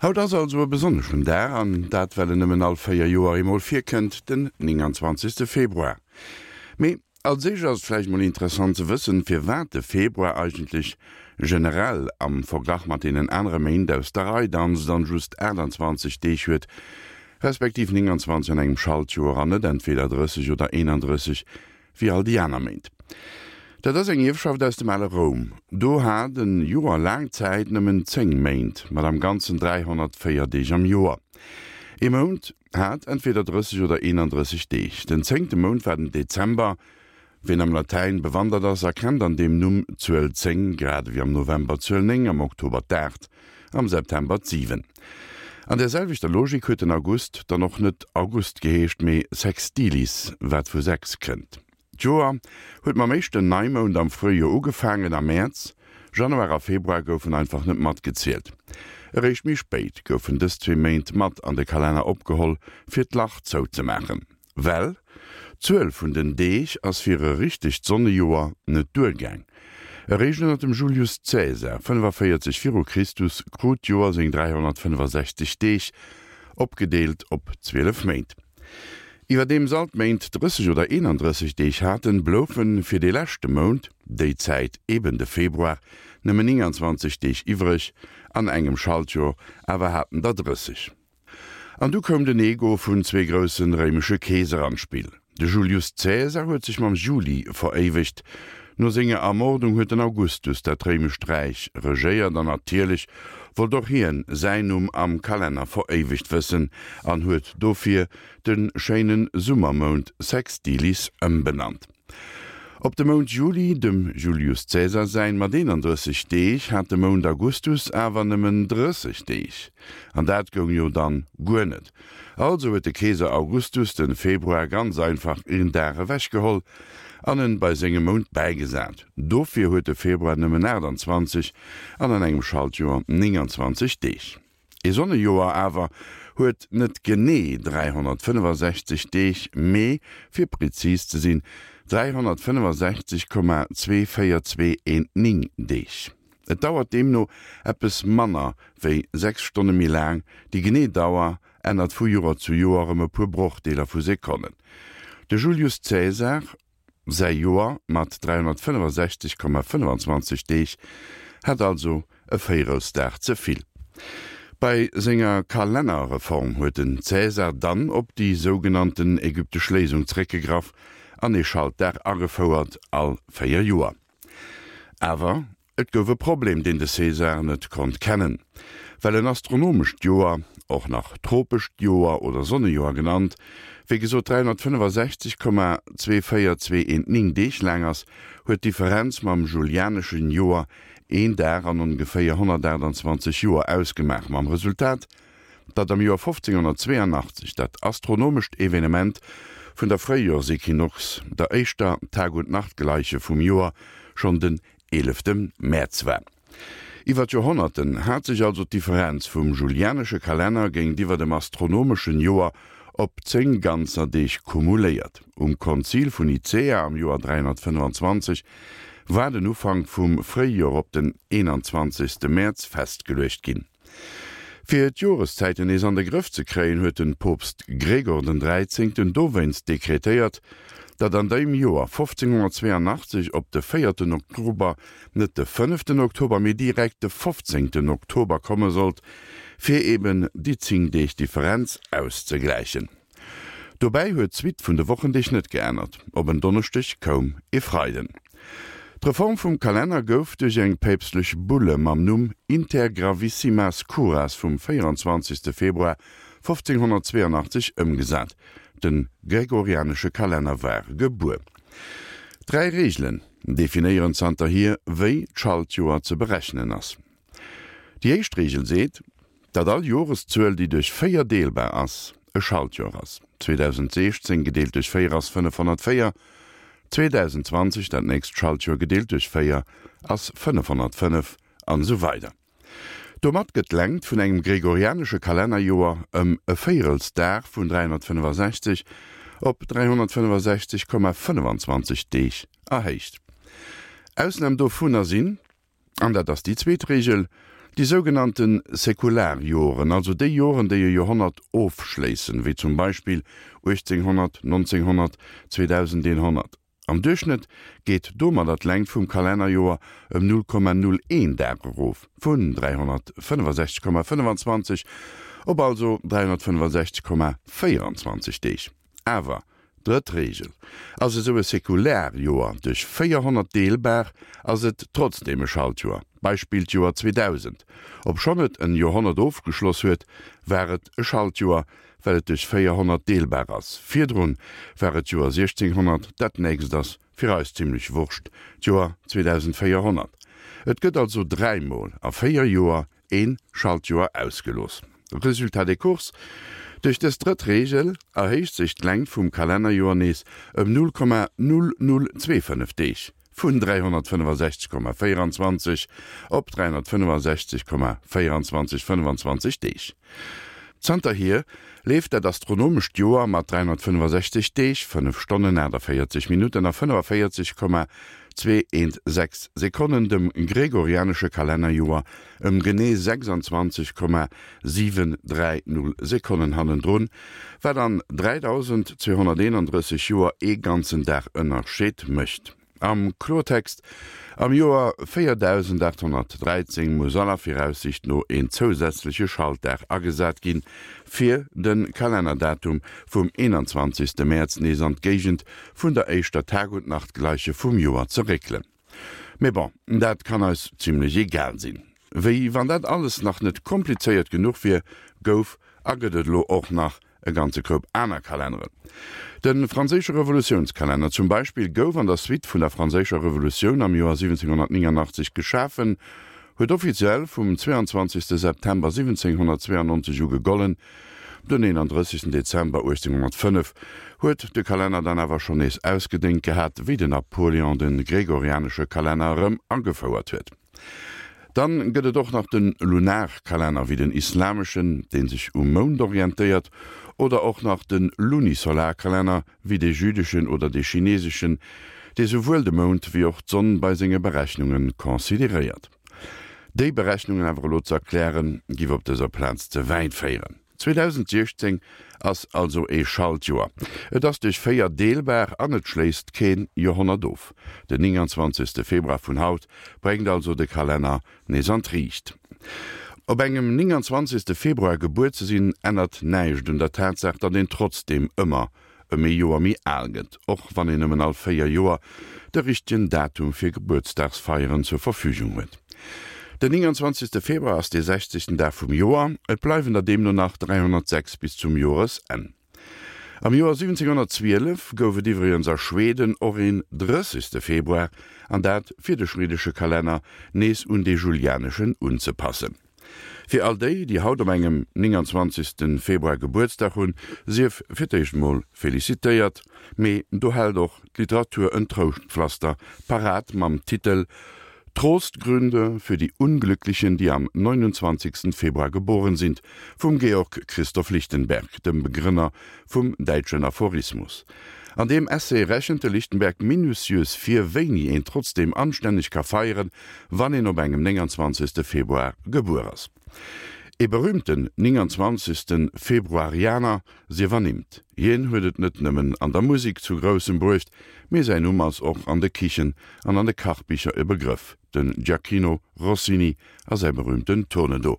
Haut ass also e besonneschen Dag, an dat well en nëmmen all 4 Joer eemol virkënnt, den 29. Februar. Mee als éischt ass et vläicht mol interessant ze wëssen, firwat de Februar eigentlech generell am Verglach mat deenen anere Méint aus der Rei danzt an just 28 Deeg huet, respektiv 29 an engem Schaltjoer an net entweder 30 oder 31 wéi all déi aner Méint. Dat ass eng Ierfschaft aus dem ale Roum. Do hat e Joer laang Zäit nëmmen 10 Méint, mat am Ganzen 304 Deeg am Joer. Ee Mount hat entweder 30 oder 31 Deeg. Den zéngte Mount war den Dezember. Ween am Latäin bewandert ass, erkennt an deem Numm d'Zuel 10, grad ewéi am November d'Zuel 9, am Oktober d'Aacht, am September d'Siwen. An där selwechter Logik huet den August dann och net August geheescht, mee Sextilis, wat vu 6 kënnt. D'Joer huet mam éischten Neimound am Fréijoer ugefaangen, am Mäerz. Januar a Februar goufen einfach net matgezielt. Eréischt méi spéit goufen dës zwee Méint mat an de Kalenner opgeholl, fir d'Lach zouzemaachen. Well d'Zuel vun den Deeg ass fir e richtegt Sonnejoer net duergaang. Eréischt ënner dem Julius Caesar, 45 viru Christus, krut d'Joer seng 365 Deeg, opgedeelt op 12 Méint. Iwwerdeems all d'Méint 30 oder 31 Deeg haten, bloufe fir dee leschte Mount, déi Zäit eben de Februar, nëmmen 29 Deeg iwwreg, an engem Schaltjoer awer haten der 30. An du koum den Ego vun zwee groussen réimesche Keeser an d'Spill. De Julius Caesar huet sech mam Juli veréiwegt. No senger Ermordung huet den Augustus dat réimescht Räich regéiert an natierlech wollt och hien säin Numm am Kalenner veréiwegt wëssen an huet dofir de schéinen Summermount Sextilis ëmbenannt. Op de Mount Juli, dem Julius Caesar säin, mat 31 Deeg, hat de Mount Augustus awer nëmmen 30 Deeg. An dat goung jo dann guer net. Also huet de Keeser Augustus den Februar ganz einfach een Dag ewechgeholl an en bei sengem Mount bäigesat. Dofir huet de Februar nëmmen 28 an an engem Schaltjoer 29 Deeg. Ee Sonnejoer awer huet net genee 365 Deeg, mee, fir prezis ze sinn, 365,24219 Deeg. Et dauert deemno eppes manner wéi 6 Stonne méi laang, déi genee Dauer ännert vu Joer zu Joer ëm e puer Brochdeeler vu Sekonnen. De Julius Caesar Säi Joer mat 365,25 Deeg hat also e Véierelsdag ze vill. Bei senger Kalennerreform huet den Caesar dann op déi sougenannten ägyptesch Léisung zeréckgegraff an ee Schaltdag agefouert, all 4 Joer. Awer Et gouf e Problem, deen de Caesar net konnt kennen. Well en astronomescht Joer, och nach tropescht Joer oder Sonnejoer genannt, wéi gesot 365,24219 Deeg laang ass, huet d'Differenz mam julianeschen Joer een Dag an ongeféier 128 Joer ausgemaach, mam Resultat, datt am Joer 1582 dat astronomescht Evenement vun der Fréijoersequinox, der éischter Tag-und-Nacht-Gleiche vum Joer, schonn den 11 Mäerz war. Iwwer d'Joerhonnerten hat sech also d'Differenz vum julianesche Kalenner géintiwwer dem astronomeschen Joer op 10 ganzer Deeg kumuléiert. Um Konzil vun Nicäa am Joer 325 war den Ufank vum Fréijoer op den 21 Mäerz festgeluecht ginn. Fir d'Joreszäiten nees an de Grëff ze kréien, huet den Poopst Gregor den Dräizéngten dowéinst dekretéiert, datt an deem Joer 1582 op de véierten Oktober net de fënneften Oktober, mee direkt de fofzéngten Oktober komme sollt, fir eben déi 10 Deeg Differenz auszegläichen. Dobäi huet d'Suite vun de Wochendeeg net geännert, op en Donneschdeg koum e Freiden. D'Reform vum Kalenner gouf duerch eng päpstlech Bulle mam Numm Inter gravissimas curas vum 24. Februar 1582 ëmgesat. De gregorianesche Kalenner war gebuer. Dräi Reegelen definéieren zanterhier, wéi d'Schaltjoer ze berechnen ass. Déi éischt Reegel seet, datt all Joreszuel, déi duerch 4 deelbar ass, e Schaltjoer ass. 2016 gedeelt duerch 4 ass 504, 2020, dat nächst Schaltjoer, gedeelt duerch 4 ass 505, an esou weider Domat gëtt d'Längt vun engem gregorianesche Kalennerjoer ëm e Véierelsdag vun 365 op 365,25 Deeg erhéicht. Ausnam dovunner sinn. An dat ass déi zweet Reegel. Déi sougenannte Säkularjoren, also déi Joren, déi e Joerhonnert ofschléissen, wéi zum Beispill 1800, 1900, 2100. Am Duerchschnëtt geet domadder d'Längt vum Kalennerjoer ëm 0,01 Dag erof, vun 365,25 op also 365,24 Deeg. Awer, drëtt Reegel, ass esou e Säkularjoer duerch 400 deelbar, ass et trotzdeem e Schaltjoer. Beispill d'Joer 2000, obschonn et en Joerhonnert ofgeschloss huet, war et e Schaltjoer, well et duerch 400 deelbar ass. Virdrun war et d'Joer 1600, dat nächst ass fir eis zimlech Wurscht, d'Joer 2400. Et gëtt also dräimol a 4 Joer een Schaltjoer ausgelooss. Résultat des courses, Duerch dës drëtt Reegel erhéicht sech d'Längt vum Kalennerjoer nees ëm 0,0025 Deeg, vun 365,24 op 365,24 25 Deeg. Zanterhier leeft dat astronomescht Joer mat 365 Deeg, 5 Stonnen, 48 Minutten a 45,216 Sekonnen dem gregorianesche Kalennerjoer ëm genee 26,730 Sekonnen hannendrun, wat an 3.231 Joer ee ganzen Dag Ënnerscheed mécht. Am Kloertext, Am Joer 4813 muss aller Viraussicht no een zousätzleche Schaltdag agesat ginn, fir de Kalennerdatum vum 21. Mäerz nees an d'Géigend vun der éischter Tagundnachtgleiche vum Joer ze réckelen. Mee bon, dat kann eis zimlech egal sinn. Wéi wann dat alles nach net komplizéiert genuch wier, gouf a gëtt et elo och nach e ganze Koup aner Kalenneren. De franséische Revolutiounskalenner zum Beispill gouf an der Suite vun der franséischer Revolutioun am Joer 1789 geschafen, huet offiziell vum 22 September 1792 u gegollen, Den 31 Dezember 1805 huet de Kalenner dann awer schonn nees ausgedéngt gehat, wéi den Napoléon de gregorianesche Kalenner erëm agefouert huet. Dann gëtt et och nach de Lunarkalenner, wéi den islameschen, dee sech um Mound orientéiert, oder och nach de Lunisolarkalenner, wéi de jüdeschen oder de chineseschen, dee souwuel de Mound wéi och d'Sonn bei senge Berechnunge consideréiert. Déi Berechnungen awer elo ze erklären, giff op dëser Plaz ze wäit féieren. 2016 ass also ee Schaltjoer. Et ass duerch 4 deelbar an et schléisst keen Joerhonnert of. Den 29. Februar vun haut bréngt also de Kalenner nees an d'Riicht. Op engem 29. Februar gebuer ze sinn, ännert näischt un der Tatsaach, datt een trotzdeem ëmmer ëm ee Joer méi al gëtt, och wann een nëmmen all 4 Joer de richtegen Datum fir Gebuertsdagsfeieren zur Verfügung huet. Den 29. Februar ass dee 60. Dag vum Joer, et bleiwen der deemno nach 306 bis zum Joresenn. Am Joer 1712 gouf et iwwregens a Schweden och een 30. Februar, an dat fir de schweedesche Kalenner nees un dee julianeschen unzepassen. Fir all déi, déi haut op engem 29. Februar Gebuertsdag hunn, sief fir d'éischt mol felicitéiert. Mee do hält och d'Literatur en Trouschtpflaster parat mam Titel Trostgründe für die Unglücklichen, die am 29. Februar geboren sind vum Georg Christoph Lichtenberg, dem Begrënner vum däitschen Aphorismus. An deem Essay rechent de Lichtenberg minutiös vir, wéini een trotzdeem anstänneg ka feieren, wann een op engem 29. Februar gebuer ass. Ee berühmten 29. Februarianer sief ernimmt. Hien huet et net nëmmen an der Musek zu Groussem bruecht, mee säin Numm ass och an de Kichen an an de Kachbicher e Begrëff, den Gioacchino Rossini a säi berühmten Tournedos.